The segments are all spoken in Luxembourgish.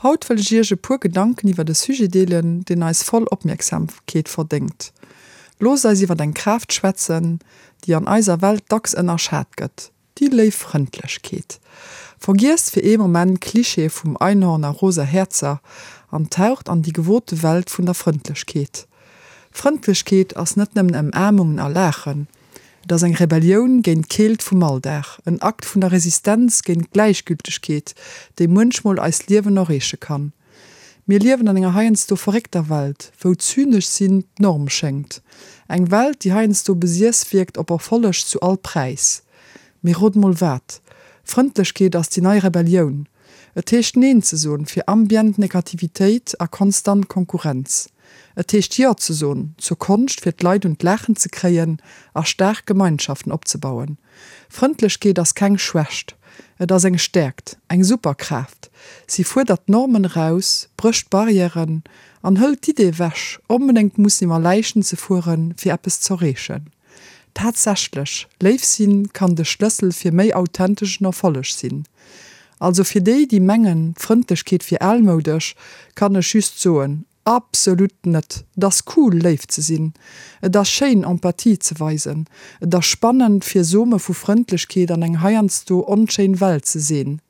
Haut wëll ech iech e puer Gedanken iwwert e Sujet deelen, deen eis voll Opmierksamkeet verdéngt. Loosst eis iwwert eng Kraaft schwätzen, déi an eiser Welt dacks ënnerschat gëtt, déi léif Frëndlechkeet. Vergiesst fir ee Moment d'Klichéë vum Einhorn a rosa Häerzer an taucht an déi gewote Welt vun der Frëndlechkeet. Frëndlechkeet ass net nëmmen Ëmaarmungen a Laachen. Et ass eng Rebellioun géint d'Keelt vum Alldag, en Akt vun der Resistenz géint d'Gläichgültegkeet, déi muenchmol eist Liewen erreeche kann. Mir liewen an enger heiansdo verréckter Welt, wou zynesch sinn d'Norm schéngt. Eng Welt, déi heiansdo besiess wierkt op Erfolleg zu all Präis. Mee rot mol wat? Frëndlechkeet ass déi nei Rebellioun. Et heescht Neen ze soen fir ambient Negativitéit a konstant Konkurrenz. Et heescht Jo ze soen zur Konscht fir d'Leit un d'Laachen ze kréien a staark Gemeinschaften opzebauen. Frëndlechkeet ass keng Schwächt, et ass eng Stäerkt, eng Superkraaft. Si fuerdert d'Normen eraus, brécht Barrièren an hëlt d'Idee ewech, onbedéngt mussen iwwer Läichen ze fueren, fir eppes z'erreechen. Tatsächlech, léif sinn kann de Schlëssel fir méi authenteschen Erfolleg sinn. Also fir déi, déi mengen, d'Frëndlechkeet wier almoudesch, kann ech just soen, Absolut net! Et ass cool, léif ze sinn. Et ass schéin, Empathie ze weisen. Et ass spannend, fir Some vu Frëndlechkeet an eng heiansdo onschéin Welt ze seen.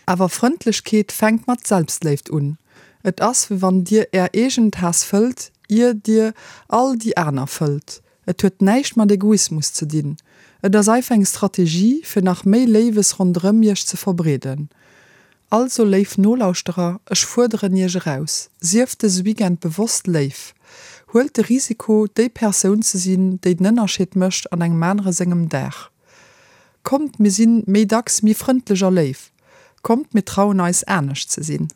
Awer Frëndlechkeet fänkt mat Selbstléift un. Et ass, wéi wann dir är eegen Taass fëllt, ier dir all déi aner fëllt. Et huet näischt mat Egoismus ze dinn. Et ass einfach eng Strategie, fir nach méi Léiwes ronderëm iech ze verbreeden. Also léif Nolauschterer, ech fuerderen iech eraus, Sieft dëse Weekend bewosst léif. Huelt de Risiko, déi Persoun ze sinn, déi den Ënnerscheed mécht an engem anere sengem Dag. Kommt, mir sinn méi dacks méi frëndlech a léif. Kommt, mir trauen eis, anescht ze sinn.